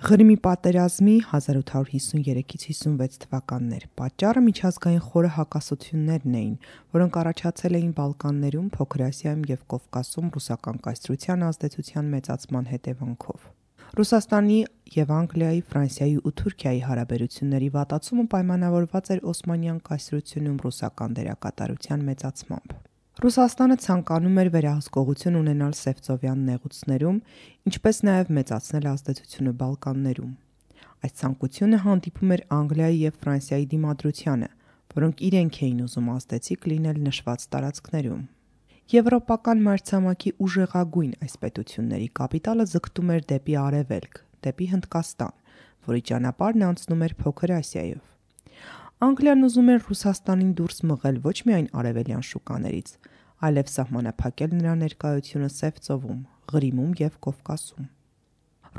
Ղրիմի պատերազմի 1853-56 թվականներ պատճառը միջազգային խորը հակասություններն էին, որոնք առաջացել էին Բալկաններում, Փոքր Ասիայում և Կովկասում ռուսական կայսրության ազդեցության մեծացման հետևանքով։ Ռուսաստանի և Անգլիայի, Ֆրանսիայի ու Թուրքիայի հարաբերությունների վատացումը պայմանավորված էր Օսմանյան կայսրությունում ռուսական դերակատարության մեծացմամբ։ Ռուսաստանը ցանկանում էր վերահսկողություն ունենալ Սևծովյան նեղուցներում, ինչպես նաև մեծացնել ազդեցությունը Բալկաններում։ Այս ցանկությունը հանդիպում էր Անգլիայի և Ֆրանսիայի դիմադրությանը, որոնք իրենք էին ուզում ազդեցիկ լինել նշված տարածքներում։ Եվրոպական մայրցամաքի ուժեղագույն այս պետությունների կապիտալը ձգտում էր դեպի արևելք, դեպի Հնդկաստան, որի ճանապարհն անցնում էր Փոքր Ասիայով։ Անգլիան ուզում էր Ռուսաստանին դուրս մղել ոչ միայն արևելյան շուկաներից, այլև սահմանափակել նրա ներկայությունը Սևծովում, Ղրիմում և Կովկասում։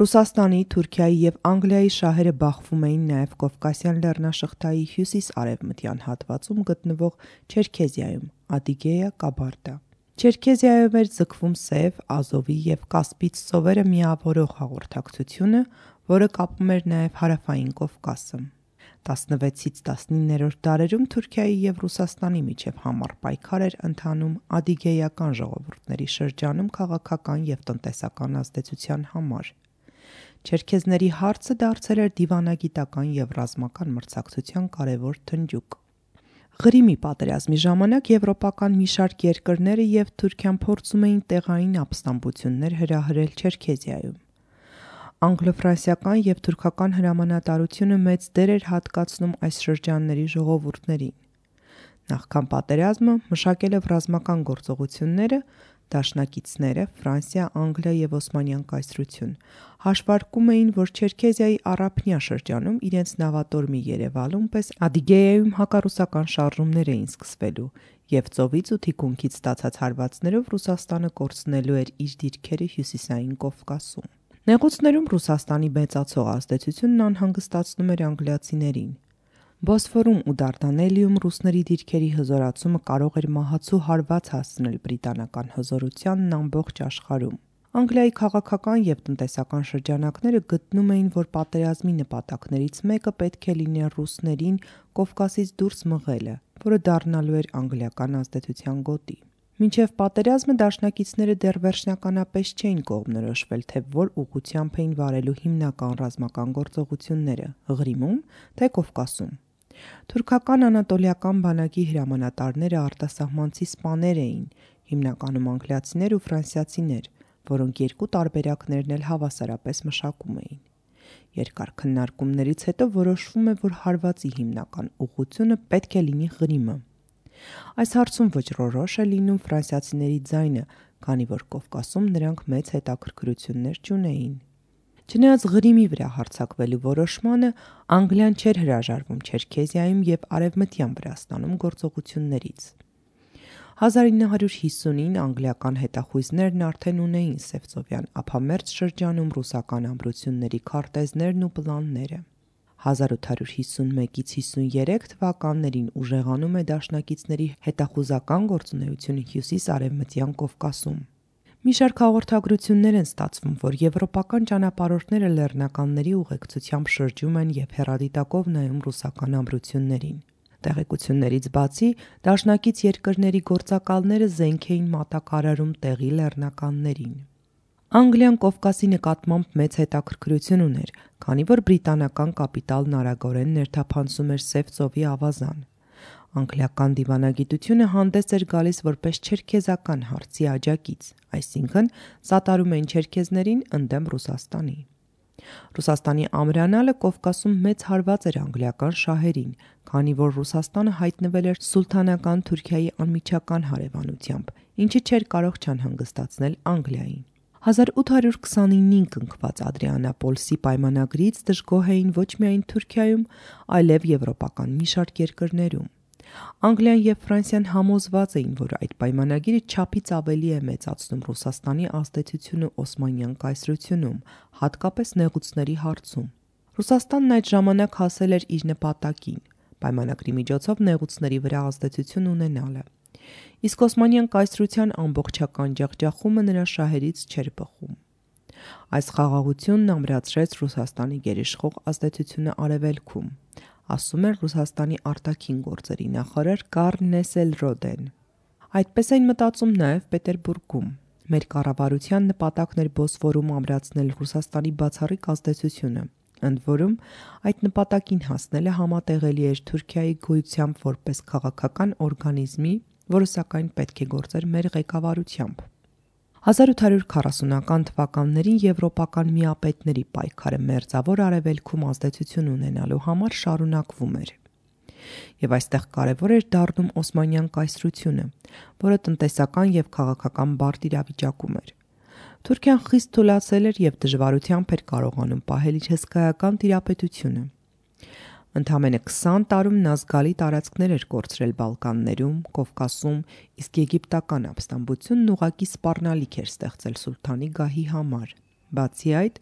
Ռուսաստանի, Թուրքիայի և Անգլիայի շահերը բախվում էին նաև Կովկասյան լեռնաշղթայի հյուսիս-արևմտյան հատվածում գտնվող Չերքեզիայում, Ադիգեյա, Կաբարդա։ Չերքեզիայով էր ձգվում Սև, Ազովի և Կասպից ծովերը միավորող հաղորդակցությունը, որը կապում էր նաև հարավային Կովկասը։ 16-ից 19-րդ դարերում Թուրքիայի և Ռուսաստանի միջև համառ պայքար էր ընթանում ադիգեյական ժողովուրդների շրջանում քաղաքական և տնտեսական ազդեցության համար։ Չերքեզների հարցը դարձել էր դիվանագիտական և ռազմական մրցակցության կարևոր թնջուկ։ Ղրիմի պատերազմի ժամանակ եվրոպական մի շարք երկրները և Թուրքիան փորձում էին տեղային ապստամբություններ հրահրել Չերքեզիայում։ Անգլո-ֆրանսիական և թուրքական հրամանատարությունը մեծ դեր էր հատկացնում այս շրջանների ժողովուրդներին։ Նախքան պատերազմը մշակելով ռազմական գործողությունները, դաշնակիցները Ֆրանսիա, Անգլիա և Օսմանյան կայսրություն հաշվարկում էին, որ Չերքեզիայի առափնյա շրջանում իրենց նավատորմի Երևալում պես Ադիգեյայում հակառուսական շարժումներ էին սկսվելու և ծովից ու թիկունքից ստացած հարվածներով Ռուսաստանը կորցնելու էր իր դիրքերը հյուսիսային Կովկասում։ Նեղուցներում Ռուսաստանի մեծացող ազդեցությունն անհանգստացնում էր անգլիացիներին։ Բոսֆորում ու Դարդանելիում ռուսների դիրքերի հզորացումը կարող էր մահացու հարված հասցնել բրիտանական հզորությանն ամբողջ աշխարհում։ Անգլիայի քաղաքական և տնտեսական շրջանակները գտնում էին, որ պատերազմի նպատակներից մեկը պետք է լիներ ռուսներին Կովկասից դուրս մղելը, որը դառնալու էր անգլիական ազդեցության գոտի։ Մինչև պատերազմը դաշնակիցները դեռ վերջնականապես չէին կողմնորոշվել, թե որ ուղղությամբ էին վարելու հիմնական ռազմական գործողությունները՝ Ղրիմում, թե Կովկասում։ Թուրքական անատոլիական բանակի հրամանատարները արտասահմանցի սպաներ էին, հիմնականում անգլիացիներ ու ֆրանսիացիներ, որոնք երկու տարբերակներն էլ հավասարապես մշակում էին։ Երկար քննարկումներից հետո որոշվում է, որ հարվածի հիմնական ուղղությունը պետք է լինի Ղրիմը։ Այս հարցում վճռորոշ է լինում ֆրանսիացիների ձայնը, քանի որ Կովկասում նրանք մեծ հետաքրքրություններ չունեին։ Չնայած Ղրիմի վրա հարձակվելու որոշմանը, Անգլիան չէր հրաժարվում Չերքեզիայում և Արևմտյան Վրաստանում գործողություններից։ 1950-ին անգլիական հետախույզներն արդեն ունեին Սևծովյան ափամերձ շրջանում ռուսական ամրությունների քարտեզներն ու պլանները։ 1851-53 թվականներին ուժեղանում է դաշնակիցների հետախուզական գործունեությունը հյուսիս-արևմտյան Կովկասում։ Մի շարք հաղորդագրություններ են ստացվում, որ եվրոպական ճանապարհորդները լեռնականների ուղեկցությամբ շրջում են և հեռադիտակով նայում ռուսական ամրություններին։ Տեղեկություններից բացի, դաշնակից երկրների գործակալները զենք էին մատակարարում տեղի լեռնականներին։ Անգլիան Կովկասի նկատմամբ մեծ հետաքրքրություն ուներ, քանի որ բրիտանական կապիտալն արագորեն ներթափանցում էր Սև ծովի ավազան։ Անգլիական դիվանագիտությունը հանդես էր գալիս որպես չերքեզական հարցի աջակից, այսինքն սատարում էին չերքեզներին ընդդեմ Ռուսաստանի։ Ռուսաստանի ամրանալը Կովկասում մեծ հարված էր անգլիական շահերին, քանի որ Ռուսաստանը հայտնվել էր սուլթանական Թուրքիայի անմիջական հարևանությամբ, ինչը չէր կարող չանհանգստացնել Անգլիային։ 1829-ին կնքված Ադրիանապոլսի պայմանագրից դժգոհ էին ոչ միայն Թուրքիայում, այլև եվրոպական մի շարք երկրներում։ Անգլիան և Ֆրանսիան համոզված էին, որ այդ պայմանագիրը չափից ավելի է մեծացնում Ռուսաստանի ազդեցությունը Օսմանյան կայսրությունում, հատկապես նեղուցների հարցում։ Ռուսաստանն այդ ժամանակ հասել էր իր նպատակին՝ պայմանագրի միջոցով նեղուցների վրա ազդեցություն ունենալը։ Իսկ Օսմանյան կայսրության ամբողջական ջախջախումը նրա շահերից չէր բխում։ Այս խաղաղությունն ամրացրեց Ռուսաստանի գերիշխող ազդեցությունը Արևելքում, ասում էր Ռուսաստանի արտաքին գործերի նախարար Կարլ Նեսելրոդեն։ Այդպես էին մտածում նաև Պետերբուրգում։ Մեր կառավարության նպատակն էր Բոսֆորում ամրացնել Ռուսաստանի բացառիկ ազդեցությունը, ընդ որում այդ նպատակին հասնելը համատեղելի էր Թուրքիայի գոյությամբ որպես քաղաքական օրգանիզմի, որը սակայն պետք է գործեր մեր ղեկավարությամբ։ 1840-ական թվականներին եվրոպական միապետների պայքարը մերձավոր Արևելքում ազդեցություն ունենալու համար շարունակվում էր։ Եվ այստեղ կարևոր էր դառնում Օսմանյան կայսրությունը, որը տնտեսական և քաղաքական բարդ իրավիճակում էր։ Թուրքիան խիստ թուլացել էր և դժվարությամբ էր կարողանում պահել իր հսկայական տիրապետությունը։ Ընդամենը 20 տարում նա զգալի տարածքներ էր կորցրել Բալկաններում, Կովկասում, իսկ եգիպտական ապստամբությունն ուղղակի սպառնալիք էր ստեղծել սուլթանի գահի համար։ Բացի այդ,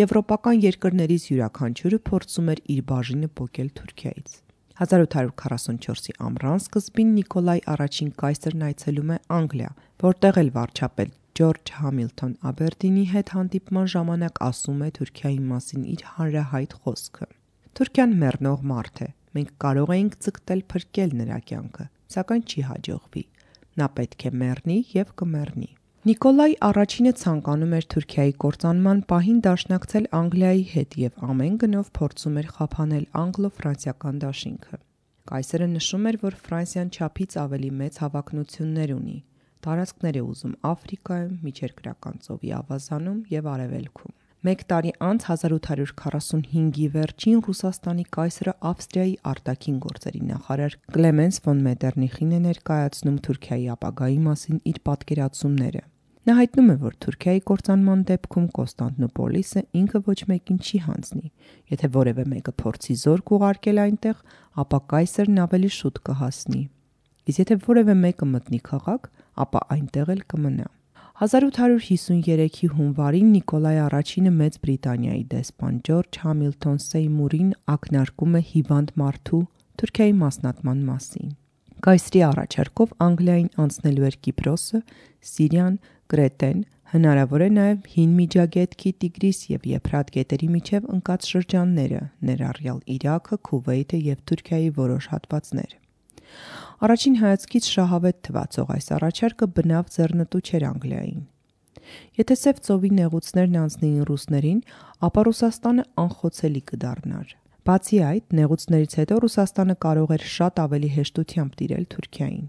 եվրոպական երկրներից յուրաքանչյուրը փորձում էր իր բաժինը պոկել Թուրքիայից։ 1844-ի ամռան սկզբին Նիկոլայ առաջին կայսրն այցելում է Անգլիա, որտեղ էլ վարչապետ Ջորջ Համիլթոն Աբերդինի հետ հանդիպման ժամանակ ասում է Թուրքիայի մասին իր հանրահայտ խոսքը. «Թուրքիան մեռնող մարդ է, մենք կարող էինք ձգտել փրկել նրա կյանքը, սակայն չի հաջողվի, նա պետք է մեռնի և կմեռնի»։ Նիկոլայ առաջինը ցանկանում էր Թուրքիայի կործանման պահին դաշնակցել Անգլիայի հետ և ամեն գնով փորձում էր խափանել անգլո-ֆրանսիական դաշինքը։ Կայսրը նշում էր, որ Ֆրանսիան չափից ավելի մեծ հավակնություններ ունի, տարածքներ է ուզում Աֆրիկայում, Միջերկրական ծովի ավազանում և Արևելքում։ Մեկ տարի անց 1845-ի վերջին Ռուսաստանի կայսրը Ավստրիայի արտաքին գործերի նախարար Կլեմենս ֆոն Մետերնիխին է ներկայացնում Թուրքիայի ապագայի մասին իր պատկերացումները։ Նա հայտնում է, որ Թուրքիայի կործանման դեպքում Կոնստանտինոպոլիսը ինքը ոչ մեկին չի հանձնի։ Եթե որևէ մեկը փորձի զորք ուղարկել այնտեղ, ապա կայսրն ավելի շուտ կհասնի։ Իսկ եթե որևէ մեկը մտնի քաղաք, ապա այնտեղ էլ կմնա։ 1853-ի հունվարին Նիկոլայ առաջինը Մեծ Բրիտանիայի դեսպան Ջորջ Համիլթոն Սեյմուրին ակնարկում է հիվանդ մարդու Թուրքիայի մասնատման մասին։ Կայսրի առաջարկով Անգլիային անցնելու էր Կիպրոսը, Սիրիան, Կրետեն, հնարավոր է նաև Հին Միջագետքի, Տիգրիս և Եփրատ գետերի միջև ընկած շրջանները, ներառյալ Իրաքը, Քուվեյթը և Թուրքիայի որոշ հատվածներ։ Առաջին հայացքից շահավետ թվացող այս առաջարկը բնավ ձեռնտու չէր Անգլիային։ Եթե Սև ծովի նեղուցներն անցնեին ռուսներին, ապա Ռուսաստանը անխոցելի կդառնար։ Բացի այդ, նեղուցներից հետո Ռուսաստանը կարող էր շատ ավելի հեշտությամբ տիրել Թուրքիային։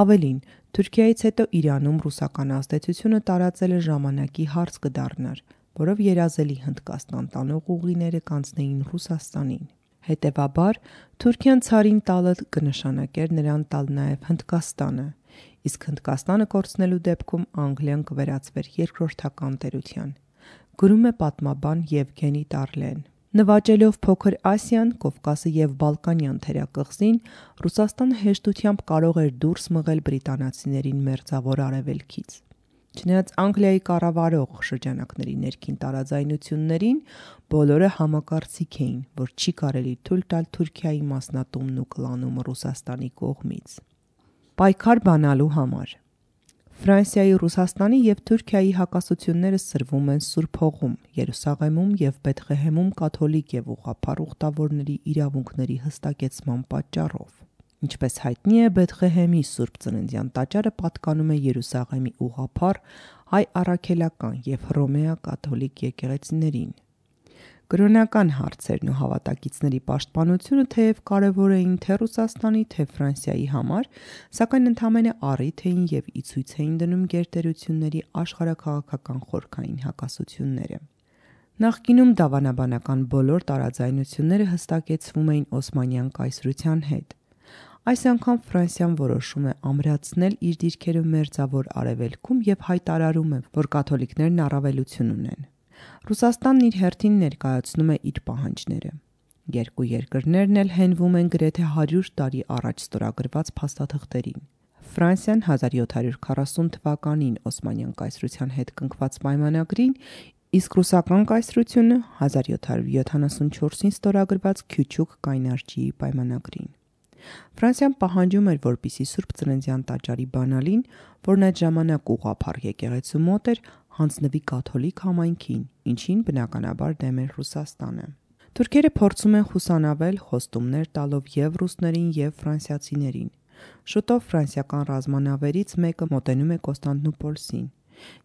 Ավելին, Թուրքիայից հետո Իրանում ռուսական ազդեցությունը տարածելը ժամանակի հարց կդառնար, որով երազելի Հնդկաստան տանող ուղիները կանցնեին Ռուսաստանին։ Հետևաբար, Թուրքիան ցարին տալը կնշանակեր նրան տալ նաև Հնդկաստանը, իսկ Հնդկաստանը կորցնելու դեպքում Անգլիան կվերածվեր երկրորդական տերության։ Գրում է պատմաբան Եվգենի Տարլեն։ Նվաճելով Փոքր Ասիան, Կովկասը և Բալկանյան թերակղզին, Ռուսաստանը հեշտությամբ կարող էր դուրս մղել բրիտանացիներին Մերձավոր Արևելքից։ Չնայած Անգլիայի կառավարող շրջանակների ներքին տարաձայնություններին, բոլորը համակարծիք էին, որ չի կարելի թույլ տալ Թուրքիայի մասնատումն ու կլանումը Ռուսաստանի կողմից։ Պայքար բանալու համար Ֆրանսիայի, Ռուսաստանի և Թուրքիայի հակասությունները սրվում են Սուրբ Հողում, Երուսաղեմում և Բեթղեհեմում կաթոլիկ և ուղղափառ ուխտավորների իրավունքների հստակեցման պատճառով։ Ինչպես հայտնի է, Բեթղեհեմի Սուրբ Ծննդյան տաճարը պատկանում է Երուսաղեմի ուղղափառ, հայ առաքելական և հռոմեա կաթոլիկ եկեղեցիներին։ Կրոնական հարցերն ու հավատակիցների պաշտպանությունը թեև կարևոր էին թե Ռուսաստանի, թե Ֆրանսիայի համար, սակայն ընդամենը առիթ էին և ի ցույց էին դնում գերտերությունների աշխարհաքաղաքական խորքային հակասությունները։ Նախկինում դավանաբանական բոլոր տարաձայնությունները հստակեցվում էին Օսմանյան կայսրության հետ։ Այս անգամ Ֆրանսիան որոշում է ամրացնել իր դիրքերը Մերձավոր Արևելքում և հայտարարում է, որ կաթոլիկներն առավելություն ունեն։ Ռուսաստանն իր հերթին ներկայացնում է իր պահանջները։ Երկու երկրներն էլ հենվում են գրեթե 100 տարի առաջ ստորագրված փաստաթղթերին։ Ֆրանսիան 1740 թվականին Օսմանյան կայսրության հետ կնքված պայմանագրին, իսկ Ռուսական կայսրությունը 1774-ին ստորագրված Քյուչուկ կայնարջիի պայմանագրին։ Ֆրանսիան պահանջում էր, որպեսզի Սուրբ Ծննդյան տաճարի բանալին, որն այդ ժամանակ ուղղափառ եկեղեցու մոտ էր, հանձնվի կաթոլիկ համայնքին, ինչին բնականաբար դեմ էր Ռուսաստանը։ Թուրքերը փորձում են խուսանավել խոստումներ տալով և ռուսներին և ֆրանսիացիներին։ Շուտով ֆրանսիական ռազմանավերից մեկը մոտենում է Կոստանդնուպոլսին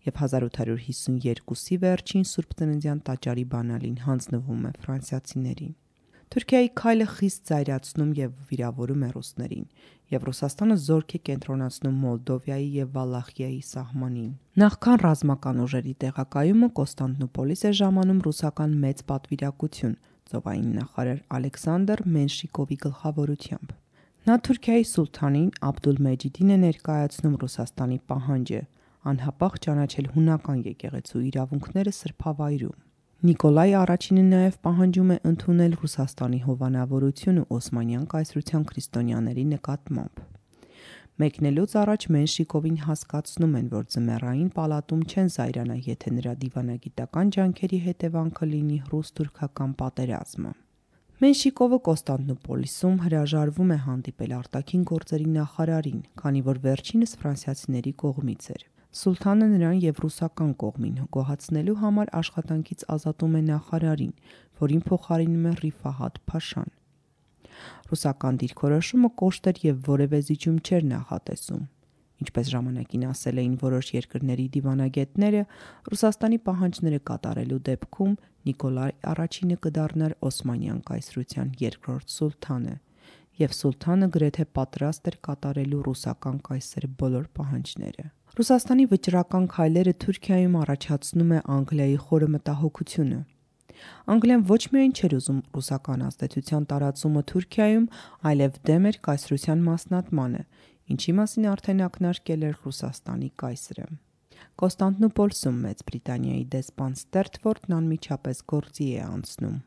և 1852-ի վերջին Սուրբ Ծննդյան տաճարի բանալին հանձնվում է ֆրանսիացիներին։ Թուրքիայի քայլը խիստ զայրացնում և վիրավորում է ռուսներին, և Ռուսաստանը զորք է կենտրոնացնում Մոլդովիայի և Վալախիայի սահմանին։ Նախքան ռազմական ուժերի տեղակայումը Կոստանդնուպոլիս է ժամանում ռուսական մեծ պատվիրակություն ծովային նախարար Ալեքսանդր Մենշիկովի գլխավորությամբ։ Նա Թուրքիայի սուլթանին Աբդուլմեջիդին է ներկայացնում Ռուսաստանի պահանջը անհապաղ ճանաչել հունական եկեղեցու իրավունքները սրբավայրում։ Նիկոլայ առաջինը նաև պահանջում է ընդունել Ռուսաստանի հովանավորությունը Օսմանյան կայսրության քրիստոնյաների նկատմամբ։ Մեկնելուց առաջ Մենշիկովին հասկացնում են, որ ձմեռային պալատում չեն զայրանա, եթե նրա դիվանագիտական ջանքերի հետևանքը լինի ռուս-թուրքական պատերազմը։ Մենշիկովը Կոստանդնուպոլիսում հրաժարվում է հանդիպել արտաքին գործերի նախարարին, քանի որ վերջինս ֆրանսիացիների կողմից էր։ Սուլթանը նրան և ռուսական կողմին գոհացնելու համար աշխատանքից ազատում է նախարարին, որին փոխարինում է Ռիֆահաթ Փաշան։ Ռուսական դիրքորոշումը կոշտ էր և որևէ զիջում չէր նախատեսում։ Ինչպես ժամանակին ասել էին որոշ երկրների դիվանագետները, Ռուսաստանի պահանջները կատարելու դեպքում Նիկոլայ առաջինը կդառնար Օսմանյան կայսրության երկրորդ սուլթանը, և սուլթանը գրեթե պատրաստ էր կատարելու ռուսական կայսրի բոլոր պահանջները։ Ռուսաստանի վճռական քայլերը Թուրքիայում առաջացնում է Անգլիայի խորը մտահոգությունը։ Անգլիան ոչ միայն չէր ուզում ռուսական ազդեցության տարածումը Թուրքիայում, այլև դեմ էր կայսրության մասնատմանը, ինչի մասին արդեն ակնարկել էր Ռուսաստանի կայսրը։ Կոստանդնուպոլսում Մեծ Բրիտանիայի դեսպան Ստերտֆորդն անմիջապես գործի է անցնում։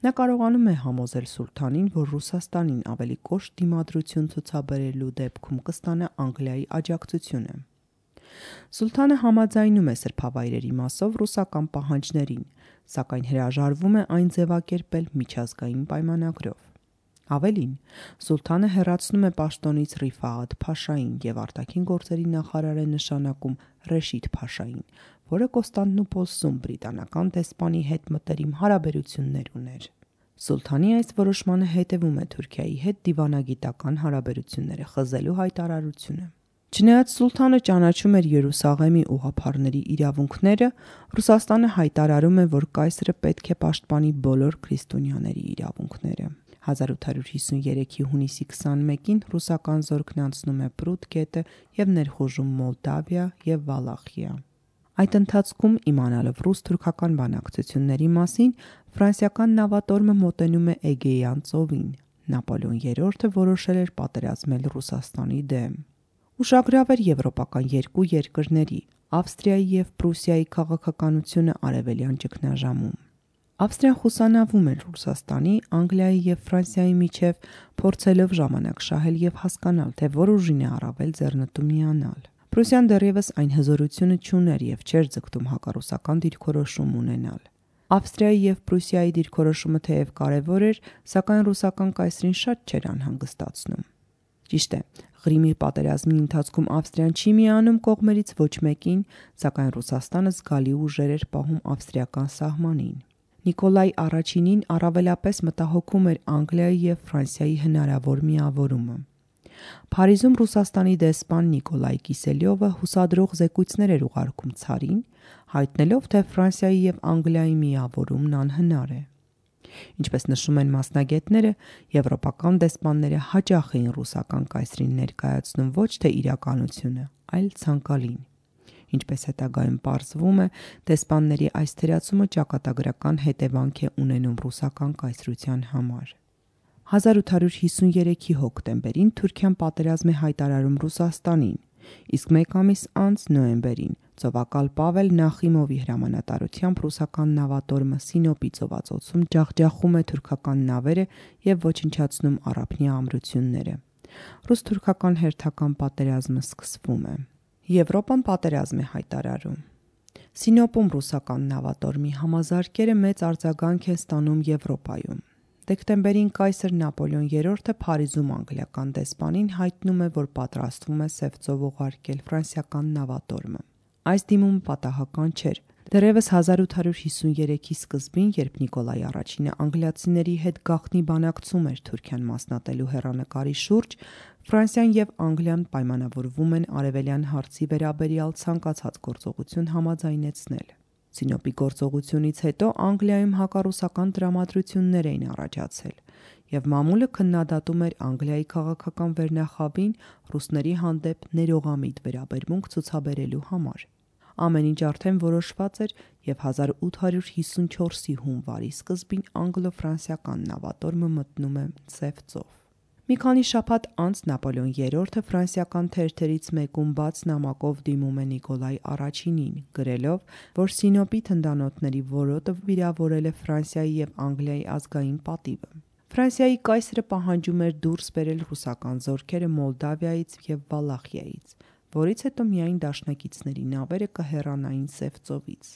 Նա կարողանում է համոզել սուլթանին, որ Ռուսաստանին ավելի կոշտ դիմադրություն ցուցաբերելու դեպքում կստանա Անգլիայի աջակցությունը։ Սուլթանը համաձայնում է սրբավայրերի մասով ռուսական պահանջներին, սակայն հրաժարվում է այն ձևակերպել միջազգային պայմանագրով։ Ավելին, սուլթանը հեռացնում է պաշտոնից Ռիֆահաթ Փաշային և արտաքին գործերի նախարար է նշանակում Ռեշիդ Փաշային, որը Կոստանդնուպոլսում բրիտանական դեսպանի հետ մտերիմ հարաբերություններ ուներ։ Սուլթանի այս որոշմանը հետևում է Թուրքիայի հետ դիվանագիտական հարաբերությունները խզելու հայտարարությունը։ Չնայած սուլթանը ճանաչում էր Երուսաղեմի ուղղափառների իրավունքները, Ռուսաստանը հայտարարում է, որ կայսրը պետք է պաշտպանի բոլոր քրիստոնյաների իրավունքները։ 1853-ի հունիսի 21-ին ռուսական զորքն անցնում է Պրուտ գետը և ներխուժում Մոլդավիա և Վալախիա։ Այդ ընթացքում, իմանալով ռուս-թուրքական բանակցությունների մասին, ֆրանսիական նավատորմը մոտենում է Էգեյան ծովին։ Նապոլեոն III-ը որոշել էր պատերազմել Ռուսաստանի դեմ։ Ուշագրավ էր եվրոպական երկու երկրների՝ Ավստրիայի և Պրուսիայի քաղաքականությունը արևելյան ճգնաժամում։ Ավստրիան խուսանավում էր Ռուսաստանի, Անգլիայի և Ֆրանսիայի միջև, փորձելով ժամանակ շահել և հասկանալ, թե որ ուժին է առավել ձեռնտու միանալ։ Պրուսիան դեռևս այն հզորությունը չուներ և չէր ձգտում հակառուսական դիրքորոշում ունենալ։ Ավստրիայի և Պրուսիայի դիրքորոշումը թեև կարևոր էր, սակայն ռուսական կայսրին շատ չէր անհանգստացնում։ Ճիշտ է, Ղրիմի պատերազմի ընթացքում Ավստրիան չի միանում կողմերից ոչ մեկին, սակայն Ռուսաստանը զգալի ուժեր էր պահում ավստրիական սահմանին։ Նիկոլայ առաջինին առավելապես մտահոգում էր Անգլիայի և Ֆրանսիայի հնարավոր միավորումը։ Փարիզում Ռուսաստանի դեսպան Նիկոլայ Կիսելյովը հուսադրող զեկույցներ էր ուղարկում ցարին, հայտնելով, թե Ֆրանսիայի և Անգլիայի միավորումն անհնար է։ Ինչպես նշում են մասնագետները, եվրոպական դեսպանները հաճախ էին ռուսական կայսրին ներկայացնում ոչ թե իրականությունը, այլ ցանկալին։ Ինչպես հետագայում պարզվում է, դեսպանների այս թերացումը ճակատագրական հետևանք է ունենում ռուսական կայսրության համար։ 1853-ի հոկտեմբերին Թուրքիան պատերազմ է հայտարարում Ռուսաստանին, իսկ մեկ ամիս անց նոյեմբերին ծովակալ Պավել Նախիմովի հրամանատարությամբ ռուսական նավատորմը Սինոպի ծովածոցում ջախջախում է թուրքական նավերը և ոչնչացնում առափնյա ամրությունները։ Ռուս-թուրքական հերթական պատերազմը սկսվում է։ Եվրոպան պատերազմ է հայտարարում։ Սինոպում ռուսական նավատորմի համազարկերը մեծ արձագանք են ստանում Եվրոպայում։ Դեկտեմբերին կայսր Նապոլեոն III-ը Փարիզում անգլիական դեսպանին հայտնում է, որ պատրաստվում է Սև ծով ուղարկել ֆրանսիական նավատորմը։ այս դիմումը պատահական չէր։ Դեռևս 1853-ի սկզբին, երբ Նիկոլայ I-ը անգլիացիների հետ գաղտնի բանակցում էր Թուրքիան մասնատելու հեռանկարի շուրջ, Ֆրանսիան եւ Անգլիան պայմանավորվում են արևելյան հարցի վերաբերյալ ցանկացած գործողություն համաձայնեցնել։ Սինոպի գործողությունից հետո Անգլիայում հակառուսական տրամադրություններ էին առաջացել, եւ մամուլը քննադատում էր Անգլիայի քաղաքական վերնախավին ռուսների հանդեպ ներողամիտ վերաբերմունք ցուցաբերելու համար։ Ամեն ինչ արդեն որոշված էր եւ 1854-ի հունվարի սկզբին անգլո-ֆրանսիական նավատորմը մտնում է Սև ծով։ Մի քանի շաբաթ անց Նապոլեոն III-ը ֆրանսիական թերթերից մեկում բաց նամակով դիմում է Նիկոլայ I-ին, գրելով, որ Սինոպի թնդանոթների որոտը վիրավորել է Ֆրանսիայի եւ Անգլիայի ազգային պատիվը։ Ֆրանսիայի կայսրը պահանջում էր դուրս բերել ռուսական զորքերը Մոլդավիայից եւ Վալախիայից, որից հետո միայն դաշնակիցների նավերը կհեռանային Սև ծովից։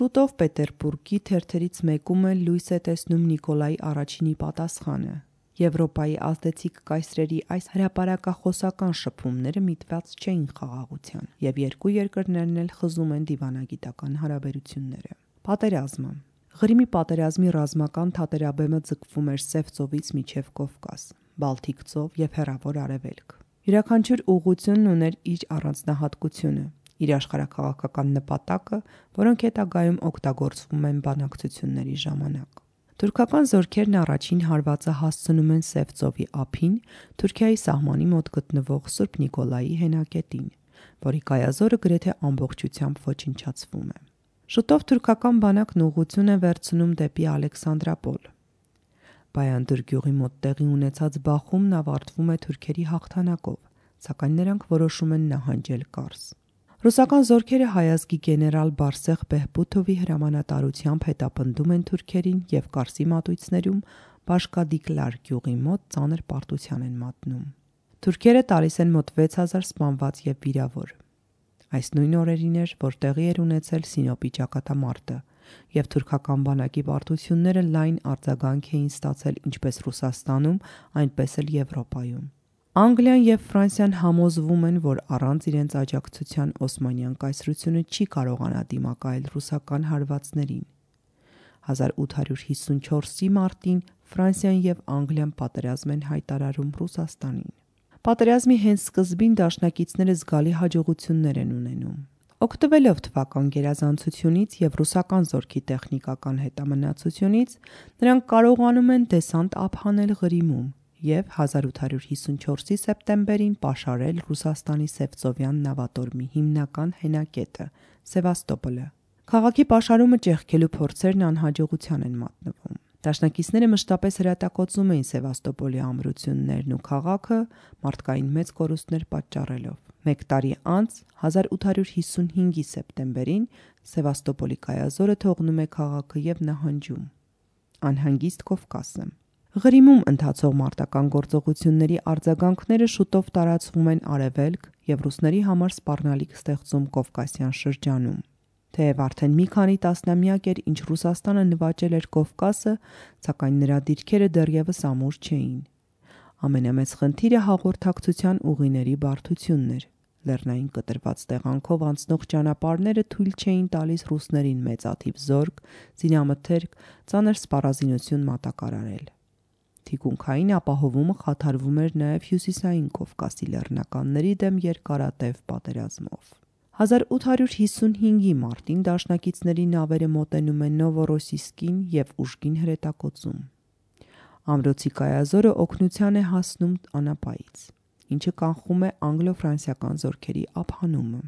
Շուտով Պետերբուրգի թերթերից մեկում էլ լույս է տեսնում Նիկոլայ I-ի պատասխանը։ Եվրոպայի ազդեցիկ կայսրերի այս հրապարակախոսական շփումները միտված չէին խաղաղության, եւ երկու երկրներն էլ խզում են դիվանագիտական հարաբերությունները։ Պատերազմը։ Ղրիմի պատերազմի ռազմական թատերաբեմը ձգվում էր Սև ծովից մինչև Կովկաս, Բալթիկ ծով եւ Հեռավոր Արևելք։ Յուրաքանչյուր ուղղությունն ուներ իր առանձնահատկությունը, իր աշխարհաքաղաքական նպատակը, որոնք հետագայում օգտագործվում են բանակցությունների ժամանակ։ Թուրքական զորքերն առաջին հարվածը հասցնում են Սև ծովի ափին, Թուրքիայի սահմանի մոտ գտնվող Սուրբ Նիկոլայի հենակետին, որի կայազորը գրեթե ամբողջությամբ ոչնչացվում է։ Շուտով թուրքական բանակն ուղղություն է վերցնում դեպի Ալեքսանդրապոլ։ Բայանդր գյուղի մոտ տեղի ունեցած բախումն ավարտվում է թուրքերի հաղթանակով, սակայն նրանք որոշում են նահանջել Կարս։ Ռուսական զորքերը հայազգի գեներալ Բարսեղ Բեհբութովի հրամանատարությամբ հետապնդում են թուրքերին եւ Կարսի մատույցներում Բաշկադիկլար գյուղի մոտ ծանր պարտության են մատնում։ Թուրքերը տալիս են մոտ 6000 սպանված եւ վիրավոր։ Այս նույն օրերին էր, որ տեղի էր ունեցել Սինոպի ճակատամարտը, եւ թուրքական բանակի պարտությունները լայն արձագանք էին ստացել ինչպես Ռուսաստանում, այնպես էլ Եվրոպայում։ Անգլիան եւ Ֆրանսիան համոզվում են, որ առանց իրենց աջակցության Օսմանյան կայսրությունը չի կարողանա դիմակայել ռուսական հարվածներին։ 1854-ի մարտին Ֆրանսիան եւ Անգլիան պատերազմ են հայտարարում Ռուսաստանին։ Պատերազմի հենց սկզբին դաշնակիցները զգալի հաջողություններ են ունենում։ Օգտվելով թվական գերազանցությունից եւ ռուսական զորքի տեխնիկական հետամնացությունից, նրանք կարողանում են դեսանտ ափանել Ղրիմում եւ 1854-ի սեպտեմբերին պաշարել Ռուսաստանի Սևծովյան նավատորմի հիմնական հենակետը՝ Սևաստոպոլը։ Քաղաքի պաշարումը ճեղքելու փորձերն անհաջողության են մատնվում։ Դաշնակիցները մշտապես հրատակոծում էին Սևաստոպոլի ամրություններն ու քաղաքը մարդկային մեծ կորուստներ պատճառելով։ Մեկ տարի անց 1855-ի սեպտեմբերին Սևաստոպոլի կայազորը թողնում է քաղաքը եւ նահանջում։ Անհանգիստ Կովկասը։ Ղրիմում ընթացող մարտական գործողությունների արձագանքները շուտով տարածվում են արևելք եւ ռուսների համար սպառնալիք ստեղծում Կովկասյան շրջանում։ Թեև արդեն մի քանի տասնամյակ էր, ինչ Ռուսաստանը նվաճել էր Կովկասը, սակայն նրա դիրքերը դեռևս ամուր չէին։ Ամենամեծ խնդիրը հաղորդակցության ուղիների բարդությունն էր։ Լեռնային կտրված տեղանքով անցնող ճանապարհները թույլ չէին տալիս ռուսներին մեծաթիվ զորք, զինամթերք, ծանր սպառազինություն մատակարարել։ Թիկունքային ապահովումը խաթարվում էր նաև հյուսիսային Կովկասի լեռնականների դեմ երկարատև պատերազմով։ 1855-ի մարտին դաշնակիցների նավերը մոտենում են Նովորոսիսկին եւ ուժգին հրետակոծում։ Ամրոցի կայազորը օգնության է հասնում անապայից, ինչը կանխում է անգլո-ֆրանսիական զորքերի ափանումը։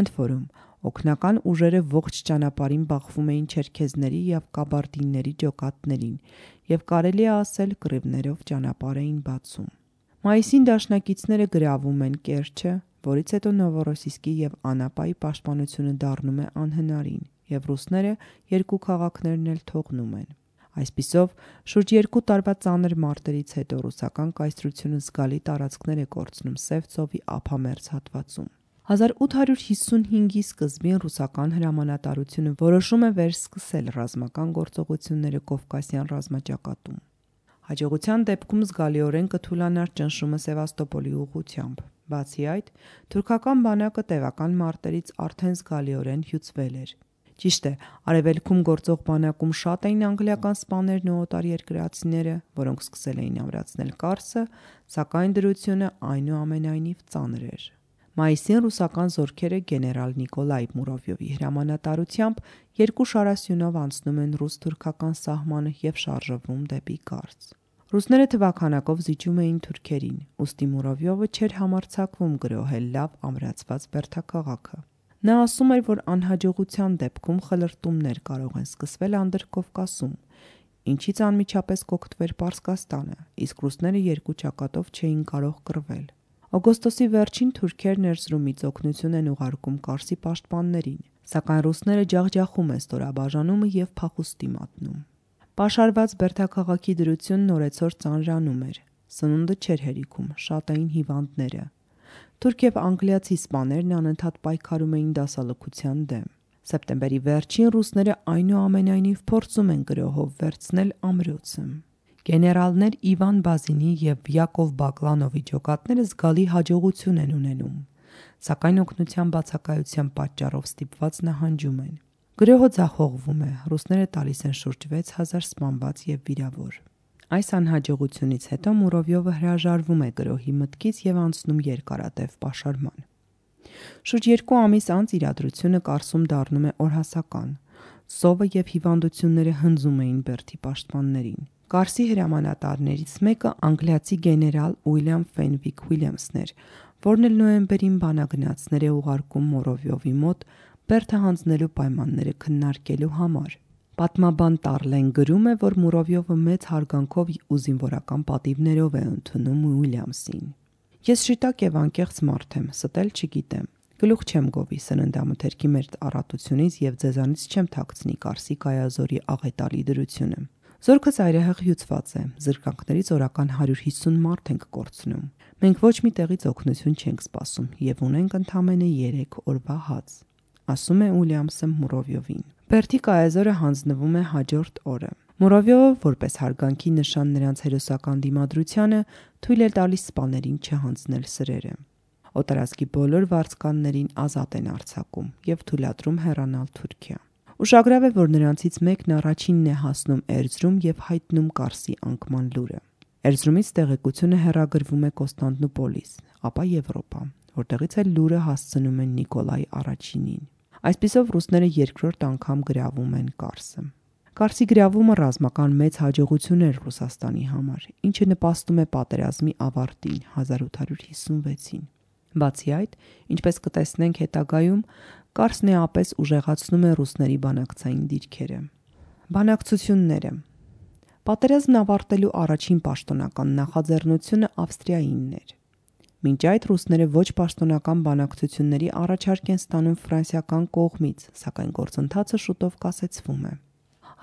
Ընդ որում, օգնական ուժերը ողջ ճանապարհին բախվում էին չերքեզների եւ կաբարդինների ջոկատներին եւ կարելի է ասել կռիվներով ճանապարհ էին բացում։ Մայիսին դաշնակիցները գրավում են Կերչը, որից հետո Նովորոսիսկի եւ Անապայի պաշտպանությունը դառնում է անհնարին եւ ռուսները երկու քաղաքներն էլ թողնում են։ Այսպիսով, շուրջ 2 տարվա ծանր մարտերից հետո ռուսական կայսրությունը զգալի տարածքներ է կորցնում Սև ծովի ափամերձ հատվածում։ 1855-ի սկզբին ռուսական հրամանատարությունը որոշում է վերսկսել ռազմական գործողությունները Կովկասյան ռազմաճակատում։ Հաջողության դեպքում զգալիորեն կթուլանար ճնշումը Սևաստոպոլի ուղղությամբ, Բացի այդ, թուրքական բանակը տևական մարտերից արդեն զգալիորեն հյուծվել էր։ Ճիշտ է, արևելքում գործող բանակում շատ էին անգլիական սպաներն ու օտարերկրացիները, որոնք սկսել էին ամրացնել Կարսը, սակայն դրությունը այնուամենայնիվ ծանր էր։ Մայիսին ռուսական զորքերը գեներալ Նիկոլայ Մուրովյովի հրամանատարությամբ երկու շարասյունով անցնում են ռուս-թուրքական սահմանը և շարժվում դեպի Կարս։ Ռուսները թվաքանակով զիջում էին թուրքերին, ուստի Մուրովյովը չէր համարձակվում գրոհել լավ ամրացված բերդաքաղաքը։ Նա ասում էր, որ անհաջողության դեպքում խլրտումներ կարող են սկսվել Անդրկովկասում, ինչից անմիջապես կօգտվեր Պարսկաստանը, իսկ ռուսները երկու ճակատով չէին կարող կռվել։ Օգոստոսի վերջին թուրքերն Էրզրումից օգնություն են ուղարկում Կարսի պաշտպաններին, սակայն ռուսները ջախջախում են ստորաբաժանումը և փախուստի մատնում։ Պաշարված բերդաքաղաքի դրությունն օրեցօր ծանրանում էր, սնունդը չէր հերիքում, շատ էին հիվանդները։ Թուրք և անգլիացի սպաներն անընդհատ պայքարում էին դասալքության դեմ։ Սեպտեմբերի վերջին ռուսները այնուամենայնիվ փորձում են գրոհով վերցնել ամրոցը։ Գեներալներ Իվան Բազինի և Յակով Բակլանովի ջոկատները զգալի հաջողություն են ունենում, սակայն օգնության բացակայության պատճառով ստիպված նահանջում են։ Գրոհը ձախողվում է, ռուսները տալիս են շուրջ 6000 սպանված և վիրավոր։ Այս անհաջողությունից հետո Մուրովյովը հրաժարվում է գրոհի մտքից և անցնում երկարատև պաշարման։ Շուրջ 2 ամիս անց իրադրությունը Կարսում դառնում է օրհասական։ Սովը և հիվանդությունները հնձում էին բերդի պաշտպաններին։ Կարսի հրամանատարներից մեկը անգլիացի գեներալ Ուիլյամ Ֆենվիկ Ուիլյամսն էր, որն էլ նոյեմբերին բանագնացներ է ուղարկում Մուրովյովի մոտ բերդը հանձնելու պայմանները քննարկելու համար։ Պատմաբան Տարլեն գրում է, որ Մուրովյովը մեծ հարգանքով ու զինվորական պատիվներով է ընդունում Ուիլյամսին։ Ես շիտակ և անկեղծ մարդ եմ, ստել չգիտեմ։ Գլուխ չեմ գովի սննդամթերքի մեր առատությունից և ձեզանից չեմ թաքցնի Կարսի կայազորի աղետալի դրությունը։ Զորքը ծայրահեղ հյուծված է, զրկանքներից օրական 150 մարդ ենք կորցնում։ Մենք ոչ մի տեղից օգնություն չենք սպասում և ունենք ընդամենը 3 օրվա հաց, ասում է Ուիլյամսը Մուրովյովին։ Բերդի կայազորը հանձնվում է հաջորդ օրը։ Մուրովյովը, որպես հարգանքի նշան նրանց հերոսական դիմադրությանը, թույլ է տալիս սպաներին չհանձնել սրերը։ Օտարազգի բոլոր վարձկաններին ազատ են արձակում և թույլատրում հեռանալ Թուրքիա։ Ուշագրավ է, որ նրանցից մեկն առաջինն է հասնում Էրզրում և հայտնում Կարսի անկման լուրը։ Էրզրումից տեղեկությունը հեռագրվում է Կոստանդնուպոլիս, ապա Եվրոպա, որտեղից էլ լուրը հասցնում են Նիկոլայ առաջինին։ Այսպիսով ռուսները երկրորդ անգամ գրավում են Կարսը։ Կարսի գրավումը ռազմական մեծ հաջողություն էր Ռուսաստանի համար, ինչը նպաստում է պատերազմի ավարտին 1856-ին։ Բացի այդ, ինչպես կտեսնենք հետագայում, Կարսն էապես ուժեղացնում է ռուսների բանակցային դիրքերը։ Բանակցությունները։ Պատերազմն ավարտելու առաջին պաշտոնական նախաձեռնությունը Ավստրիայինն էր։ Մինչ այդ ռուսները ոչ պաշտոնական բանակցությունների առաջարկ են ստանում ֆրանսիական կողմից, սակայն գործընթացը շուտով կասեցվում է։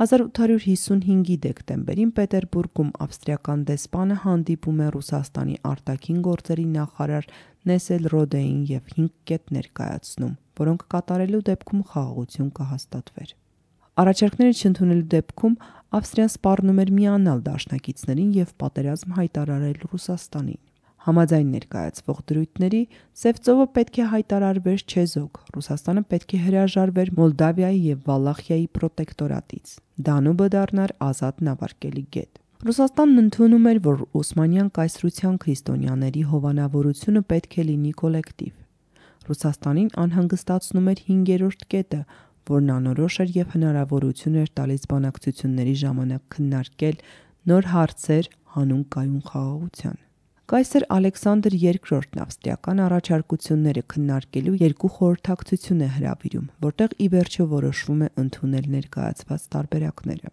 1855-ի դեկտեմբերին Պետերբուրգում ավստրիական դեսպանը հանդիպում է Ռուսաստանի արտաքին գործերի նախարար Նեսելրոդեին և 5 կետ ներկայացնում, որոնք կատարելու դեպքում խաղաղություն կհաստատվեր։ Առաջարկները չընդունելու դեպքում Ավստրիան սպառնում էր միանալ դաշնակիցներին և պատերազմ հայտարարել Ռուսաստանին։ Համաձայն ներկայացվող դրույթների Սև ծովը պետք է հայտարարվեր չեզոք, Ռուսաստանը պետք է հրաժարվեր Մոլդավիայի և Վալախիայի պրոտեկտորատից, Դանուբը դառնար ազատ նավարկելի գետ։ Ռուսաստանն ընդունում էր, որ Օսմանյան կայսրության քրիստոնյաների հովանավորությունը պետք է լինի կոլեկտիվ։ Ռուսաստանին անհանգստացնում էր 5-րդ կետը, որն անորոշ էր և հնարավորություն էր տալիս բանակցությունների ժամանակ քննարկել նոր հարցեր հանուն կայուն խաղաղության։ Կայսր Ալեքսանդր II-ն ավստրիական առաջարկությունները քննարկելու 2 խորհրդակցություն է հրավիրում, որտեղ ի վերջո որոշվում է ընդունել ներկայացված տարբերակները։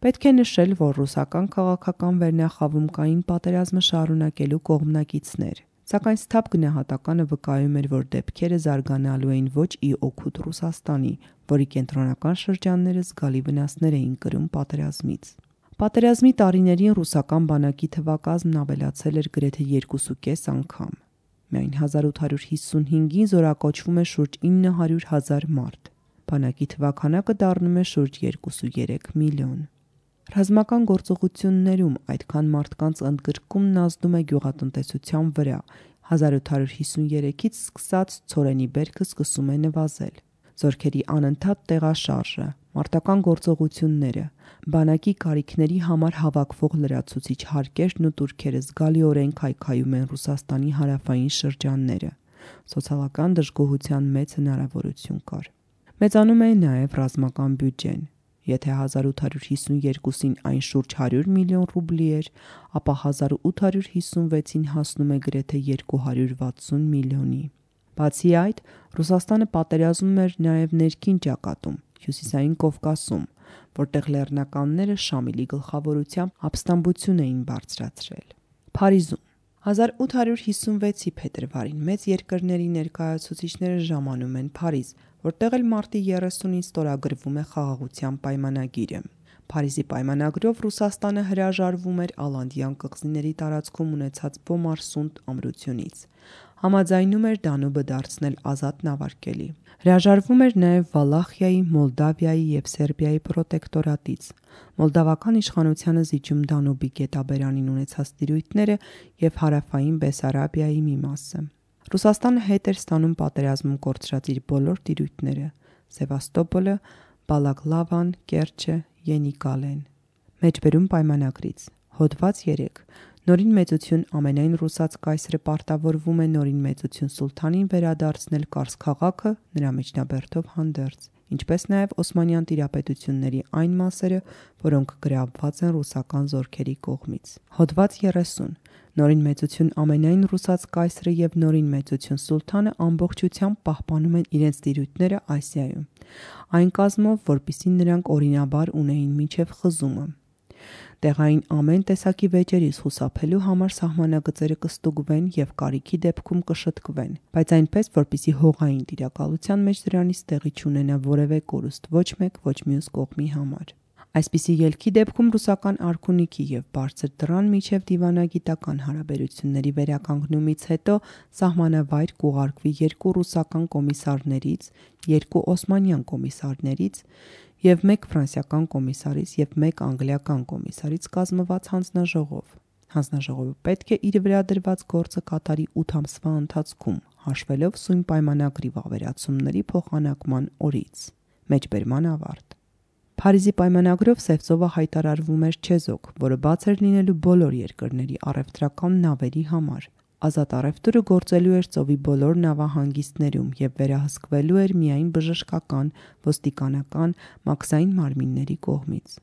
Պետք է նշել, որ ռուսական քաղաքական վերնախավում կային պատերազմը շարունակելու կողմնակիցներ, սակայն սթափ գնահատականը վկայում էր, որ դեպքերը զարգանալու էին ոչ ի օգուտ Ռուսաստանի, որի կենտրոնական շրջանները զգալի վնասներ էին կրում պատերազմից։ Պատերազմի տարիներին ռուսական բանակի թվակազմն ավելացել էր գրեթե 2.5 անգամ։ Միայն 1855-ին զորակոչվում է շուրջ 900,000 մարդ։ Բանակի թվաքանակը դառնում է շուրջ 2.3 միլիոն։ Ռազմական գործողություններում այդքան մարդկանց ընդգրկումն ազդում է գյուղատնտեսության վրա, 1853-ից սկսած ցորենի բերքը սկսում է նվազել։ Զորքերի անընդհատ տեղաշարժը, մարտական գործողությունները, բանակի կարիքների համար հավաքվող լրացուցիչ հարկերն ու տուրքերը զգալիորեն քայքայում են Ռուսաստանի հարավային շրջանները։ Սոցիալական դժգոհության մեծ հնարավորություն կար։ Մեծանում է նաև ռազմական բյուջեն։ Եթե 1852-ին այն շուրջ 100 միլիոն ռուբլի էր, ապա 1856-ին հասնում է գրեթե 260 միլիոնի։ Բացի այդ, Ռուսաստանը պատերազմում էր նաև ներքին ճակատում, Հյուսիսային Կովկասում, որտեղ լեռնականները Շամիլի գլխավորությամբ ապստամբություն էին բարձրացրել։ Փարիզում 1856-ի փետրվարին մեծ երկրների ներկայացուցիչները ժամանում են Փարիզ, որտեղ էլ մարտի 30-ին ստորագրվում է խաղաղության պայմանագիրը։ Փարիզի պայմանագրով Ռուսաստանը հրաժարվում էր Ալանդյան կղզիների տարածքում ունեցած Բոմարսունդ ամրությունից։ Համաձայնում էր Դանուբը դարձնել ազատ նավարկելի։ Հրաժարվում էր նաև Վալախիայի, Մոլդավիայի և Սերբիայի պրոտեկտորատից։ Մոլդավական իշխանությանը զիջում Դանուբի գետաբերանին ունեցած տիրույթները և հարավային Բեսարաբիայի մի մասը։ Ռուսաստանը հետ էր ստանում պատերազմում կորցրած իր բոլոր տիրույթները՝ Սևաստոպոլը, Բալակլավան, Կերչը, Ենիկալեն։ Մեջբերում պայմանագրից Հոդված 3 Նորին մեծություն ամենայն ռուսաց կայսրը պարտավորվում է նորին մեծություն սուլթանին վերադարձնել Կարս քաղաքը նրա միջնաբերդով հանդերձ, ինչպես նաև Օսմանյան տիրապետությունների այն մասերը, որոնք գրավված են ռուսական զորքերի կողմից։ Հոդված 30 Նորին մեծություն ամենայն ռուսաց կայսրը և նորին մեծություն սուլթանը ամբողջությամբ պահպանում են իրենց տիրույթները Ասիայում, այն կազմով, որպեսզի նրանք օրինաբար ունեին մինչև խզումը։ Տեղային ամեն տեսակի վեճերից խուսափելու համար սահմանագծերը կստուգվեն և կարիքի դեպքում կշտկվեն, բայց այնպես, որպեսզի հողային տիրակալության մեջ դրանից տեղի չունենա որևէ կորուստ ոչ մեկ, ոչ մյուս կողմի համար։ Այսպիսի ելքի դեպքում ռուսական արքունիքի և բարձր դռան միջև դիվանագիտական հարաբերությունների վերականգնումից հետո սահմանավայր կուղարկվի 2 ռուսական կոմիսարներից, 2 օսմանյան կոմիսարներից և 1 ֆրանսիական կոմիսարից և 1 անգլիական կոմիսարից կազմված հանձնաժողով։ Հանձնաժողովը պետք է իր վրա դրված գործը կատարի 8 ամսվա ընթացքում, հաշվելով սույն պայմանագրի վավերացումների փոխանակման օրից։ Մեջբերման ավարտ։ Փարիզի պայմանագրով Սևծովը հայտարարվում էր չեզոք, որը բաց էր լինելու բոլոր երկրների առևտրական նավերի համար։ Ազատ առևտուրը գործելու էր ծովի բոլոր նավահանգիստներում և վերահսկվելու էր միայն բժշկական, ոստիկանական, մաքսային մարմինների կողմից։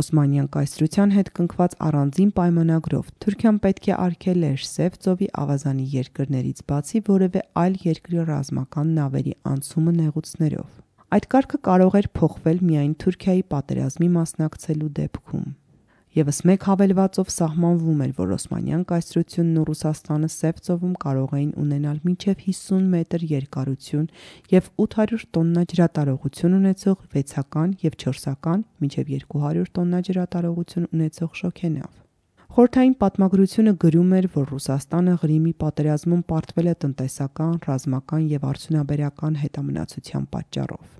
Օսմանյան կայսրության հետ կնքված առանձին պայմանագրով Թուրքիան պետք է արգելեր Սև ծովի ավազանի երկրներից բացի որևէ այլ երկրի ռազմական նավերի անցումը նեղուցներով։ Այդ կարգը կարող էր փոխվել միայն Թուրքիայի պատերազմի մասնակցելու դեպքում։ Եվս մեկ հավելվածով սահմանվում էր, որ Օսմանյան կայսրությունն ու Ռուսաստանը Սև ծովում կարող էին ունենալ մինչև 50 մետր երկարություն և 800 տոննա ջրատարողություն ունեցող 6-ական և 4-ական մինչև 200 տոննա ջրատարողություն ունեցող շոգենավ։ Խորհրդային պատմագրությունը գրում էր, որ Ռուսաստանը Ղրիմի պատերազմում պարտվել է տնտեսական, ռազմական և արդյունաբերական հետամնացության պատճառով։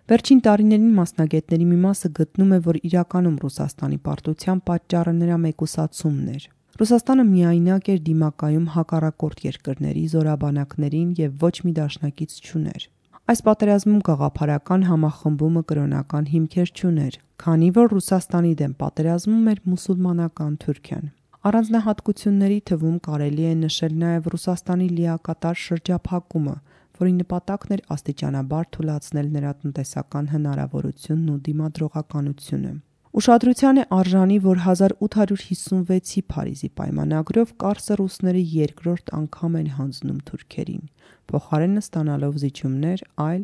Վերջին տարիներին մասնագետների մի մասը գտնում է, որ իրականում Ռուսաստանի պարտության պատճառը նրա մեկուսացումն էր։ Ռուսաստանը միայնակ էր դիմակայում հակառակորդ երկրների զորաբանակներին և ոչ մի դաշնակից չուներ։ Այս պատերազմում գաղափարական համախմբումը կրոնական հիմքեր չուներ, քանի որ Ռուսաստանի դեմ պատերազմում էր մուսուլմանական Թուրքիան։ Առանձնահատկությունների թվում կարելի է նշել նաև Ռուսաստանի լիակատար շրջափակումը, որի նպատակն էր աստիճանաբար թուլացնել նրա տնտեսական հնարավորությունն ու դիմադրողականությունը։ Ուշադրության է արժանի, որ 1856-ի Փարիզի պայմանագրով Կարսը ռուսները երկրորդ անգամ են հանձնում թուրքերին, փոխարենը ստանալով զիջումներ այլ,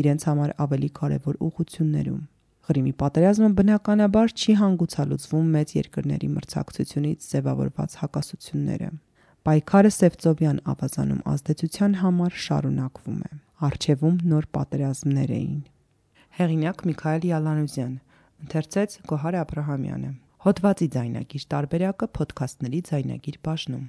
իրենց համար ավելի կարևոր ուղղություններում։ Ղրիմի պատերազմը բնականաբար չի հանգուցալուծվում մեծ երկրների մրցակցությունից ձևավորված հակասությունները։ Պայքարը Սևծովյան ավազանում ազդեցության համար շարունակվում է։ Առջևում նոր պատերազմներ էին։ Հեղինակ Միքայել Յալանուզյան, ընթերցեց Գոհար Աբրահամյանը։ Հոդվածի ձայնագիր տարբերակը Փոդքասթների ձայնագիր բաժնում։